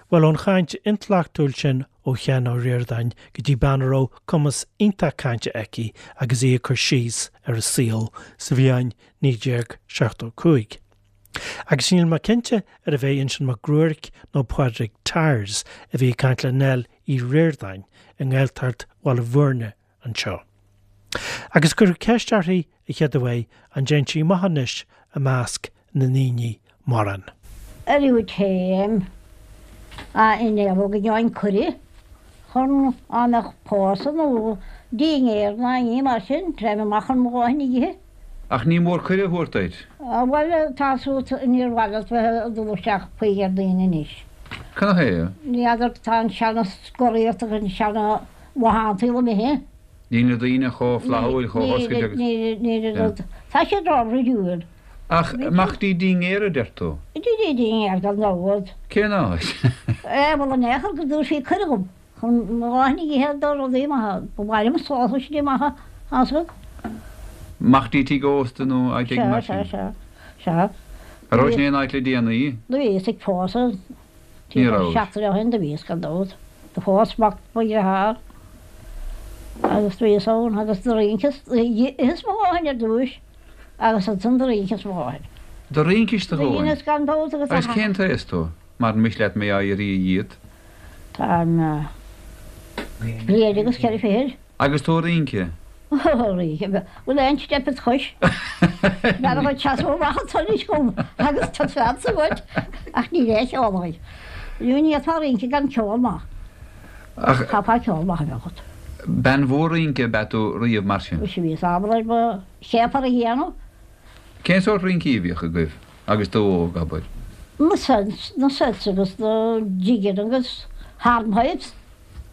Bhuel, ón chaint intleachtúil sin ó Sheán Ó Ríordáin go dtí bean a raibh cumas iontach cainte aici agus í ag cur síos ar a saol sa bhliain 1975. Agus níl mé cinnte arbh é Uinseann Mac Ruairc nó Pádraig Tyers a bhí ag caint le Nell Uí Ríordáin i nGaeltacht Bhaile Bhúirne anseo. Agus cuireadh ceist uirthi a chéad uair an dtéann sí amach anois i measc na ndaoine mórán. Ariú téim a innéalóg a gheobhainn cuireadh chun á mbeadh pósadh nó dinnéar ná ní mar sin, téim amach chun mo dhóthain a ithe. Ach ní mór cuireadh a thabhairt duit. Bhuel, tá suas, níor mhaith leat bheith ag dul isteach faoi ar daoine anois. Canathaobh? Ní fheadar, tá an seana-scoraíocht agus an seana-mhathántaíl imithe. Níl na daoine chomh flaithiúil, chomh hoscailte agus. Níl, níl, níl, tá siad ró-bhruidiúil. Ach amach dtí dinnéar a deir tú? Dtí dinnéar gan dabht. Cén áit? Eh, bhuel, in aon chor go dtabharfaí cuireadh dhom. Chun mo dhóthain a ithe do rudaí maithe. Ba mhaith liom sósaistí maithe a fháil. Amach dtí tigh ósta nó áit éigin mar sin? Sea, sea, sea. An rabhais in aon áit le déanaí? Do bhíos ag pósadh. Ní rabhais. Seachtain ó shin do bhíos gan dabht. Do phós mac mo dhearthár agus do bhíos ann agus do rinceas, d'itheas mo dhóthain ar dtúis agus ansan do rinceas mo dhóthain. Do rincis do dhóthain? Dheineas gan dabht agus. Agus cén t-aos tú? Mar miste leat mé á iarraidh dhíot. Táim bliain agus cheithre fichid. Agus tú ag rince? Ó, rince. Bhfuil aon steip id chois? B'fhearr dhuit seasamh amach anso anois dhom agus taispeántas a thabhairt. Ach níl aon cheol againn. Ní fhéadfá rince gan ceol maith. Ach. Chaithfeá ceol maith a bheith agat. Bean mhór rince ab ea tú riamh mar sin? Bhí bhíos ábalta ar mo chéapar a dhéanamh. Cén sórt rincí a bhíodh agaibh agus tú óg, abair? Na sets, na sets agus na jigeanna agus hornpipes.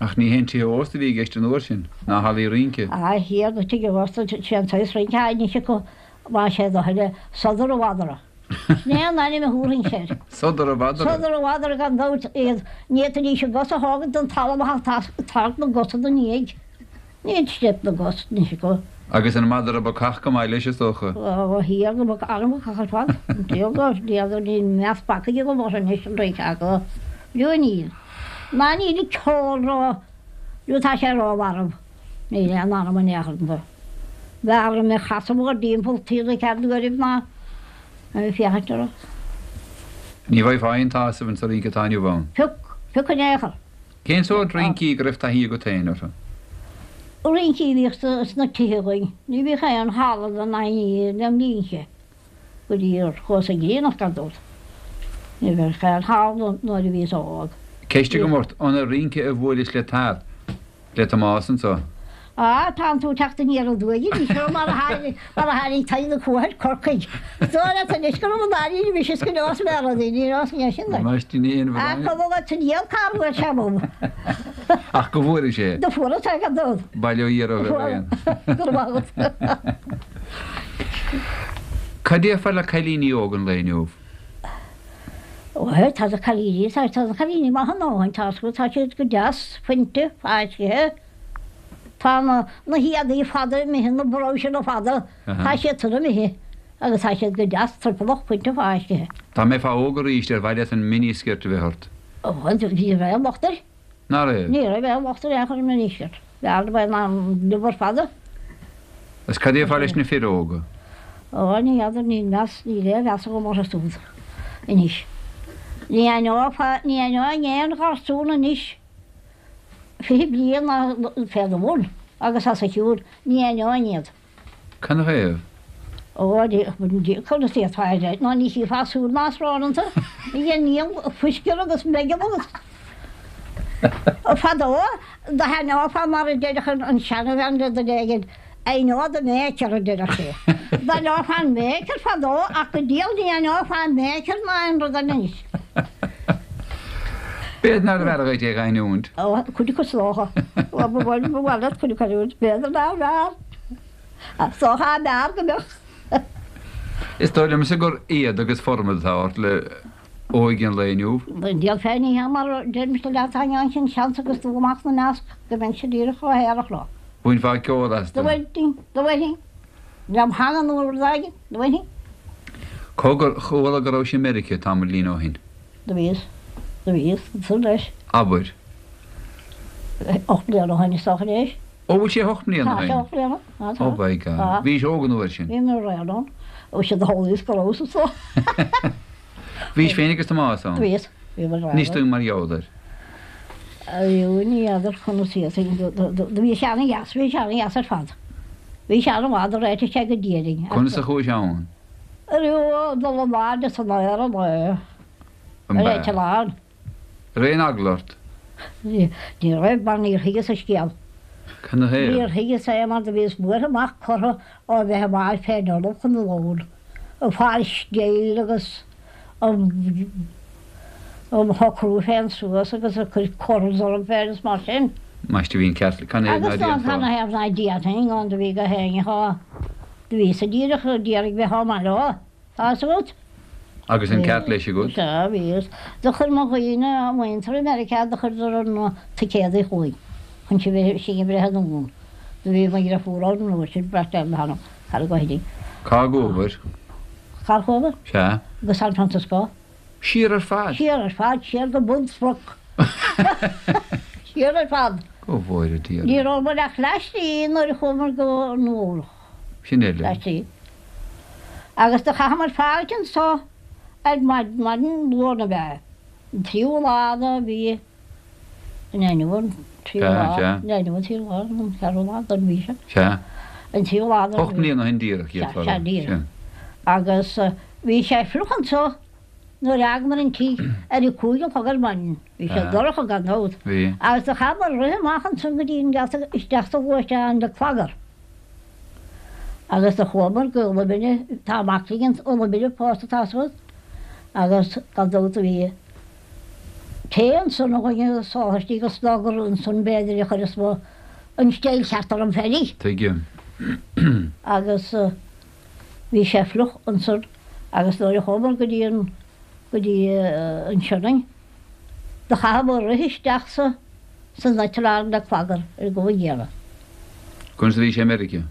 Ach ní haon tithe ósta a bhí i gceist an uair sin, ná hallaí rince. A Thiarna, tithe ósta, sé an saghas rince atá anois acu, más é do thoil é, sodar a mhadra. Sin é an ainm a thabharfainnse air. Sodar a mhadra? Sodar a mhadra gan dabht, iad, ní fhéadfaidís a gcosa a thógaint den talamh ach tarraingt na gcosa ina ndiaidh. Níl steip na gcos anois acu. Agus an madra bacach go maith leis, is dócha. Ó, a Thiarna, bac an-bhacach ar fad. An diabhal dóibh, n'fheadar, níl meas bacaigh agam orthu anois, an rince acu. B'fhiú níl. Ná níl an ceol ró, nó tá sé rómharbh. Níl aon anam in aon chor iontu. B'fhearr liom é a chasadh mór dtimpeall taobh na cead uairibh ná a bheith ag féachaint orthu. Ní bhfaighfeá aon tsásamh insa rince atá inniu ann. Pioc, pioc in aon chor. Cén sórt rincí go raibh taithí agat féin orthu? Rincí a bhíodh sna tithe againn. Ní bhíodh aon halla don aon lem linnse go dtí gur chuas ag aonach gan dabht. Ní bheadh aon halla nuair a bhíos óg. Ceist agam ort, an ag rince a bhuailis le Tad? Le Tomás anso? Á, tánn tú ag teacht aniar aduaidh anois, ó mar a tháinig, mar a tháinig Tadhg na Cuaich ar Corcaigh. Is dóigh leat anois go raibh an dáiríre mise is go neos mé rudaí, ní neos mé sin duit. Ambaiste, ní haon Á, bhrón. cuma leat an diabhal cár bhuail sé romham. Ach go bhfuairis é. Do fuaras é gan dabht. Bail ó Dhia oraibh ar aon. Go raibh maith agat. Cad déarfá le cailíní óga an lae inniu? Ó, tá na cailíní, tá, tá na cailíní maith a ndóthain, tá, tá siad go deas, fuinte, fáiscthe. Tá na, na héadaí fada imithe, na brabhsanna fada, tá siad san imithe agus tá siad go deas triopallach, fuinte, fáiscthe. Dá mbeifeá óg arís, ar mhaith leat an mini-skirt a bheith ort? Ó, ní raibh aon locht air. Ná raibh? Ní raibh aon locht ar aon chor ar an mini-skirt. B'fhearr liom é ná an liobar fada. Agus cad déarfá leis na fir óga? Ó, ní fheadar, níl meas, níl aon mheas agam orthu súd anois. Ní aithneofá, ní aithneoinn aon gharsún anois 20 bliain ná fé do bhun agus os a chionn, ní aithneoinn iad. Canathaobh? Ó, conas d'fhéadfá a rá, ná ní chífeá súil ná srón iontu, níl fuiscear agus meigeall agus fadó do haithneofá mar a deireadh an seanabhean le duine éigin, I know the maker a deireadh sí. D'aithneofá an maker fadó ach go diabhal ní aithneofá an maker ná aon rud eile anois. B'fhéidir nárbh fhearr dhuit é a aithniúint. Ó, cuid acu is dócha. Ba mhaith leat cuid acu a aithniúint, b'fhéidir nárbh fhearr. Is dócha ab fhearr go mbeadh. Is dóigh liomsa gur éad agus formad atá ort le óige an lae inniu. An diabhal féin ní hea mar a deirimse leat, tá an sin seans agus dul amach 'na measc go mbeinnse díreach chomh haerach leo. Bhainfeá ceol astu. Do bhainfinn, do bhainfinn. Lem theanga nó rud éigin, do bhainfinn. Cogar, chuala go rabhais i Meiriceá tamaillín ó shin. Do bhíos. Do bhíos ansan leis. Abair. 8 mbliana ó shin is dócha anois. Ó, bhfuil sé 8 mbliana ó shin? Tá sé 8 mbliana. Tá, tá. Oh by God. Tá. Bhís óg an uair sin. Bhí mé réidh ann. Ó siad a thólaíos go rabhas anso. Bhís féin agus Tomás ann? Bhíos. Bhí mé réidh. Inis dúinn mar gheall air. Ariú ní fheadar conas iad. Do bhí sé ana-dheas, bhí sé ana-dheas ar fad. Bhí sé an-mhaith, do réitigh sé go diaidh. Conas a chuais ann? Ariú, dul in airde san aer an é. An Ar eitleán. Raibh aon eagla ort? Ní raibh, mar níor thuigeas an scéal. Cad 'na thaobh? Níor thuigeas é mar do bhíos buartha amach curtha ó bheith amach fén ullamh chun an lóin, ag fáil scéil agus um shocrú féin suas agus ag cur corals orm féin is mar sin. Maiste bhí an ceart, cad 'na thaobh ná Agus ná cad 'na thaobh ná déanfainn gan do bhí go héinne thá, do bhíos-sa díreach ag iarraidh bheith chomh maith leo. Tá fhios agat? Agus an ceart leis agat? Sea, bhíos. Do chuir mo dhaoine, muintir i Meiriceá, do chuireadar na ticéadaí chugainn chun sinn a bhreith anonn. Do bhí mo dhriofúr ann an uair sin, beirt eile thar an gcoirín. Cá gcuabhair? Cár chuabhair? Sea. Go San Francisco. Siar ar fad? Siar ar fad, siar go bun sproc. Siar ar fad. Go bhfóire Dia orainn. Ní rabhamar ach leath slí nuair a chuamar go Nua Eabhrac. Sin eile. Leath slí. Agus do chaitheamar fáilt anso ar maidin Luain ab ea, an tríú lá de mhí an inniu an tríú lá, Sea, inniu an tríú lá, an ceathrú lá den mhí seo. Sea. An tríú lá den 8 mbliana ó shin díreach, Sea, sea, díreach. Agus bhí sé fliuch anso nuair a fhágamar an tigh ar a cúig a chlog ar maidin. Bhí sé dorcha gan dabht. Bhí. Agus do chaitheamar rith amach ansan go dtí an geata isteach sa ghluaisteán le clagar. Agus do chuamar go Uladh Binne, tá mac linn in Uladh Binne pósta tá fhios agat, agus gan dabht do bhí tae ansan againn agus sósaistí agus gur ansan b'fhéidir a chuireas mo, an steil cheart orm féinig. Tuigim. Agus bhí sé fliuch ansan agus nuair a chuamar go dtí an, go dtí an Sionainn, Do chaitheamar rith isteach sa san eitleán le clagar ar an gcuma gcéanna. Conas a bhí sé i Meiriceá?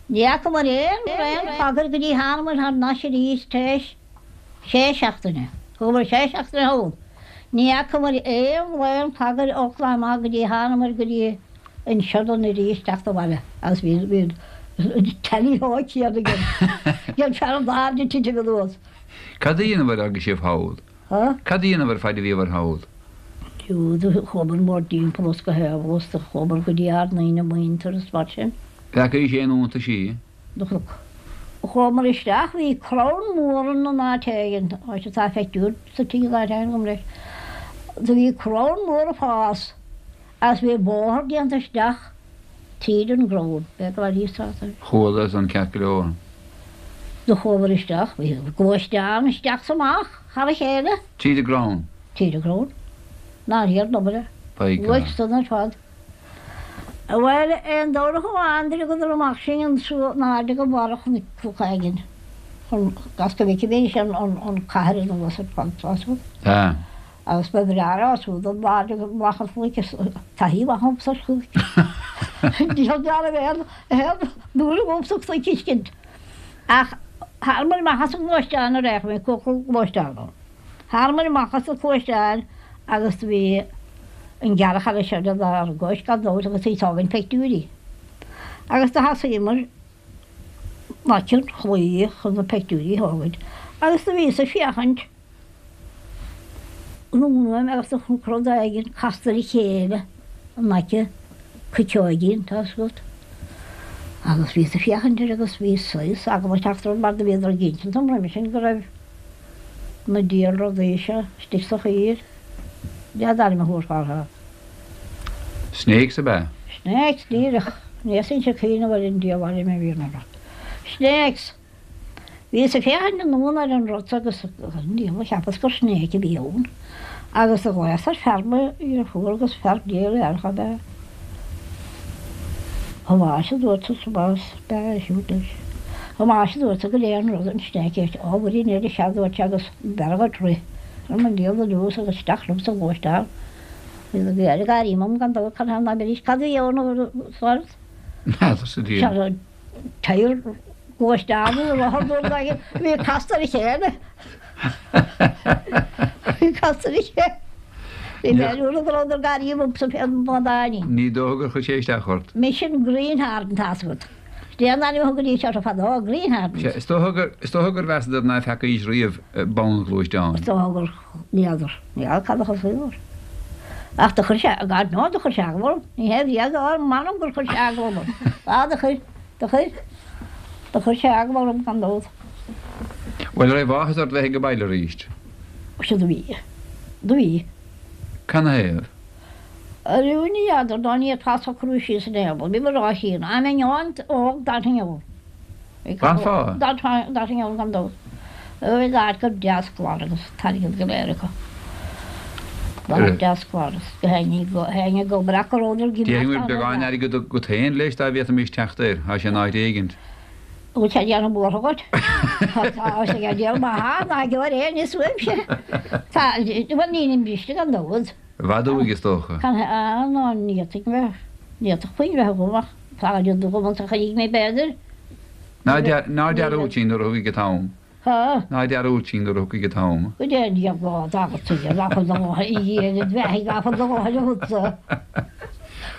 Ní fhacamar aon bhraon clagair go dtí thánamar thar n-ais arís tar éis sé seachtaine. Thugamar sé seachtaine thall. Ní fhacamar aon bhraon clagair ó Oklahoma go dtí thánamar go dtí an Sionainn arís teacht abhaile agus bhí bhí an tally-ho céanna ag an fear an airde titim anuas. Cad a dheineabhair agus sibh thall? Há? Cad a dheineabhair faid a bhíobhair thall? Fiú do chuamar mórthimpeall is go haimhleas do chuamar go dtí ár ndaoine muintir is mar sin. Bhfeacaís aon iontaisí? Do chonac. Chuamar isteach, bhí crann mór in an áit éigin, áit atá feicthiúr sa tigh in áit éigin agam leis. Do bhí crann mór ag fás agus bhí bóthar déanta isteach tríd an gcrann. B'fhéidir go raibh níos táta. Chuala san ceart go leor. Do chuamar isteach, bhí gluaisteán isteach 's amach thar a chéile. Tríd an gcrann. Tríd an gcrann. Nár thiar an obair é. By God. Bhuaigh san ar fad. Bhuel, aon Domhnach amháin d'fhágadar amach sinn anso in airde go barra chnoc éigin chun as go bhfeicfimis an cathair anuas ar fad, tá 'fhios agat. Tá. Agus ba bhreá leo siúd in airde amach an chnoic is taithí mhaith agamsa ar chnoic. Níl dealramh aon aon dúil agamsa cnoic a fheiscint. Ach thánamar amach as an ngluaisteán nuair a fhéach mé cúpla gluaisteán ann. Thánamar amach as an ghluaisteán agus do bhí an gearrchaile eile seo lenár gcois gan dabht agus í ag tógaint peictiúirí. Agus do thosaíomar in aice an chlaí chun na peictiúirí a thógaint agus do bhíos ag féachaint anonn uaim agus do chonac rud éigin casta ar a chéile in aice cuiteoigín, tá 'fhios agat. Agus bhíos ag féachaint air agus bhí saghas eagla ag teacht orm mar do bhíodar ag insint dom roimhe sin go raibh na diabhal rudaí seo istigh sa choill. Cad é an t-ainm a thabharfá orthu? Snakes ab ea? Snakes, díreach. Ní fhéadfainnse cuimhneamh ar an diabhal ainm a bhí orthu. Snakes! Bhíos ag féachaint anonn ar an rud agus an diabhal, cheapas gur snake a bhí ann. Agus do ghlaos ar fear mo dheirfiúr agus fear géar ab ea. Tomás a dúirt Tomás, b'ea é siúd leis. Tomás a dúirt goidé an rud an snake é. Ó, mhuirín eile sea a dúirt sé agus b'fhearr dhuit rith. Ar mo dhiabhal anuas agus isteach liom sa ghluaisteán. Bhí na Gaeil ag gáirí mom gan dabht cad ná beidís cad a bhí ann a Sárant? N'fheadar sa diabhal. Sea, Tyre gluaisteán nó rothar nó rud éigin a bhí casta ar a chéile. Bhí casta ar a chéile. Bhí mé ar go rabhadar gar dhomsa fén mbád Ní dócha gur chuir sé isteach ort. Mise an Greenhorn, tá's agat. Sin é an ainm a thugaidís orthu fadó, Greenhorns. Sea, is dócha gur, is dócha gur mheasadar ná feacaís riamh bonn-ghluaisteán. Is dócha gur, n'fheadar, n'fheadar cad a thosaigh air. Ach do chuir sé, God knows, do chuir sé eagla orm. Ní hé bhí eagla orm, m'anam gur chuir sé eagla orm. Á, do chuir, do chuir, do chuir sé eagla orm gan dabht. Bhuel, raibh áthas ort bheith ag baile arís? Sea, do bhí. Do bhí. Canathaobh? Ariú ní fheadar dá ndéarfá socrú síos in aon rud. Bhí mo ráithín. Dá mbeinn an-óg d'fhanfainn ann. D'fhanfá? D'fhanfainn ann gan dabht. Bhí áit go deas glan agus an t-airgead go léir acu. Áit deas glan agus go héinne ag obair ach go rabhadar ag imeacht Déarfainn go bhfuil beagán airgid agat féin leis dá bhféadfaimis teacht air. Tá sé in áit éigint. Bhfuil sé ag déanamh buartha dhuit? Tá sé ag déanamh maith, ná geobhair aon ní uaimse. Tá, bhuel nílim briste gan dabht. I bhfad uaidh is dócha. Can ná ní fhéadfaidh mé, ní fhéadfadh puinn bheith agam ach tá rud agam anso a chuirfidh mé b'fhéidir. Ná dearúd sinn nuair a thiocfaidh an t-am. Há? Ná dearúd sinn nuair a thiocfaidh an t-am. Go dté an diabhal lá dá agat nach bhfuil do dhóthain a Dhia id bheathaidh nach bhfuil do dhóthain agatsa.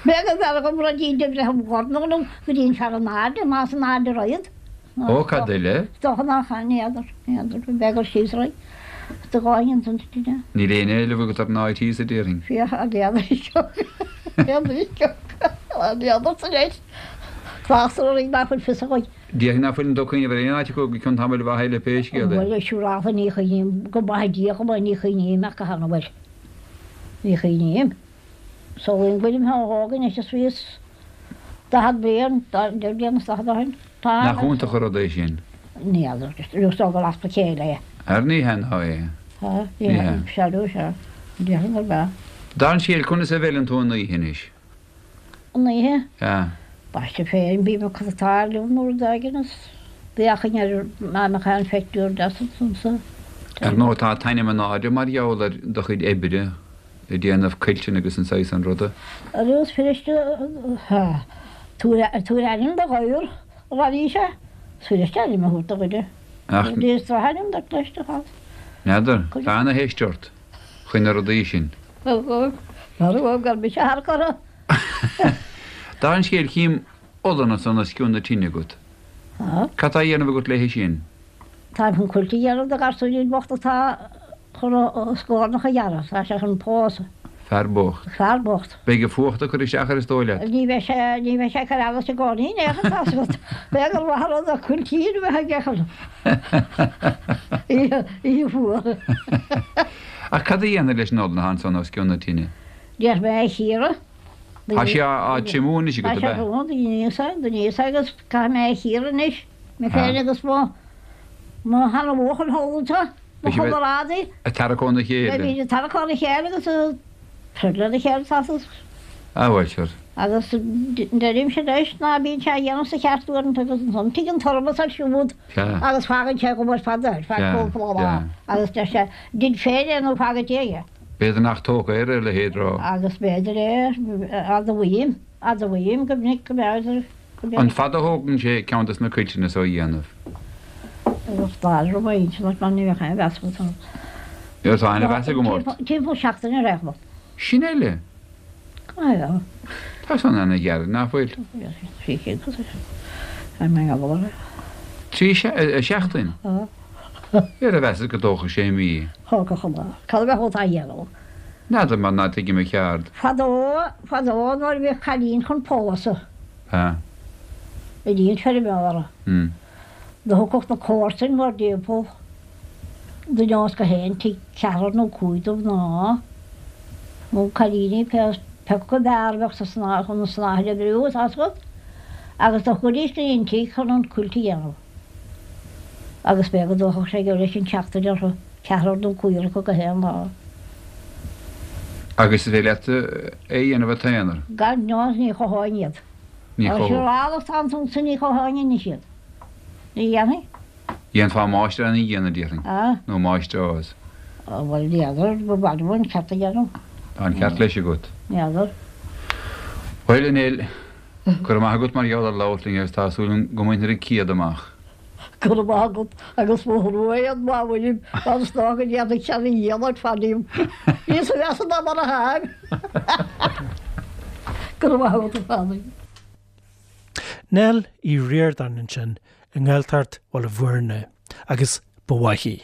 B'é go bhfearr dhom ruidín de bhreith im dhorn nó go dtí an fear in airde, más in airde raghad. Ó, cad eile? Is dócha nach ea, n'fheadar, n'fheadar, b'é gur síos raghaidh do dhóthain ansan duit. Níl aon éileamh agat ar an áit thíos, a déarfainn. Féach, a n'fheadar, n'fheadar, n'fheadar sa leis. Tráchtar orainn nach bhfuil fios againn. Déarfainn ná fuileann tú ag cuimhneamh ar aon áit acu go cionn tamaill mhaith eile pé scéal é. Bhuel, siúrálta ní chuimhním, go maithe Dia dhom é, ní chuimhním ach go han-bhuel. Ní chuimhním. Samhlaím go bhfuilim chomh hóg anois is bhíos 40 bliain, deich mbliana is 40 ó shin. Tá. Nach iontach an rud é sin? Ní fheadar, is dóigh gur easpa céille é. Ar ní hea ná é. Tá, ní hea. Sea, sea, déarfainn gurb ea. Dar an scéal, conas a mheileann tú an oíche anois? An oíche? Sea. Baiste féin, bím ag cothatáil liom nó rud éigin is d'fhéachainn ar má mbeadh aon phictiúr deas ansan sa. Ar ndóigh tá t'ainm in airde mar gheall ar do chuid oibre ag déanamh cuilteanna agus an saghas san ruda. Arís fuiriste tabhair ainm do ghadhar, a raibh sé. Is fuiriste ainm a thabhairt do dhuine. Ach. Is drochainm duit leis do chás. N'fheadar. Tá ana-theist ort faoi na rudaí sin. Marbh gur mise thar curtha. Dar an scéal chím olann ansan os cionn na tine agat. Cad tá á dhéanamh agat léi sin? Táim chun cuilt a dhéanamh do gharsúinín bocht atá chun a scornach a ghearradh. Tá sé chun pósadh. Fear bocht. Fear bocht. Beidh an fuacht ag cur isteach air is dóigh leat. Ní bheidh sé, ní bheidh sé ag cur allais i gcónaí in aon chor, tá's agat. B'fhéidir gur mhaith an rud é cuiltín a bheith aige chun oíche, oíche fuar. Ach cad a dhéanfair leis an olann atá ansan os cionn na tine? Déanfaidh mé é a chíoradh. Tá sé á triomú anois agat, ab ea? Tá sé á thriomú, do dheineas é, do dheineas é agus caithfidh mé é a chíoradh anois, mé féin agus mo, mo sheana-bhuachaill thall anseo, mo chomrádaí. Ag tarrac óna chéile. Beimid ag tarrac óna chéile agus ag troid lena chéile, tá fhios. Ah, bhuel, sure. Agus deirimse leis ná bíonn sé á dhéanamh sa cheart uaireanta agus ansan tig an tormas air siúd agus fágann sé ag obair fada ar feadh cúpla lá agus deir sé, Dein féin é nó fág i Dia é. B'fhéidir nach tógtha air a leithéid rá. Agus b'fhéidir é, admhaím, admhaím go minic go mb'fhéidir go mb'fhéidir. An fada a thógann sé ceann des na cuilteanna so a dhéanamh? Bheadh dáil romhainn inseacht mar ní bheadh aon mheas agat orm. Tá ana-mheas agam ort. Timpeall seachtaine ar aon chuma. Sin eile! Go Tá san ana-ghearr, nach bhfuil? 3 seachtain? Ar mheasas go dtógfadh sé mí? Thógfadh an lá. Cad a bheadh á dhéanamh? N'fheadar mar ná tuigim a cheard. Fadó, fadó nuair a bhíodh cailín chun pósadh. Sea. I dtí an feirmeora. Do thiocfadh na comharsain mórthimpeall duine as gach aon tigh, ceathrar nó cúig de mhná, nó cailíní, pé acu ab fhearr a bheadh sa snáth chun an snáithe a oibriú, tá's agat, agus do chuiridís go dtí an tigh chun an cuilt a dhéanamh. Agus b'fhéidir go dtógfadh sé go leis an tseachtain orthu, ceathrar nó cúigear acu gach aon lá. Agus is féidir leat é a dhéanamh i t'aonar? Gan dabht, ní chothóinn iad. Ní chothódh. Siúráil atá ansan ní chothóinn anois iad. Ní dhéanfainn. Dhéanfá máistir ana-dhéanamh, déarfainn. Ah. Nó máistreás. Bhuel, n'fheadar, ba mhaith liom an ceart a dhéanamh. Tá an ceart leis agat. N'fheadar. Bhuel, a Nell, go raibh maith agat mar gheall ar labhairt linn agus tá súil agam go mbainfir an céad amach. Go raibh maith agat agus mo thrua é an mhaoin mar is dócha go ndéanfaidh sé a dhícheall ort fanaím. Níos measa ná mar a tháim. Go raibh maith agat a Phádraig. Nell Uí Ríordáin ansin i nGaeltacht Bhaile Bhuirne agus ba mhaith í.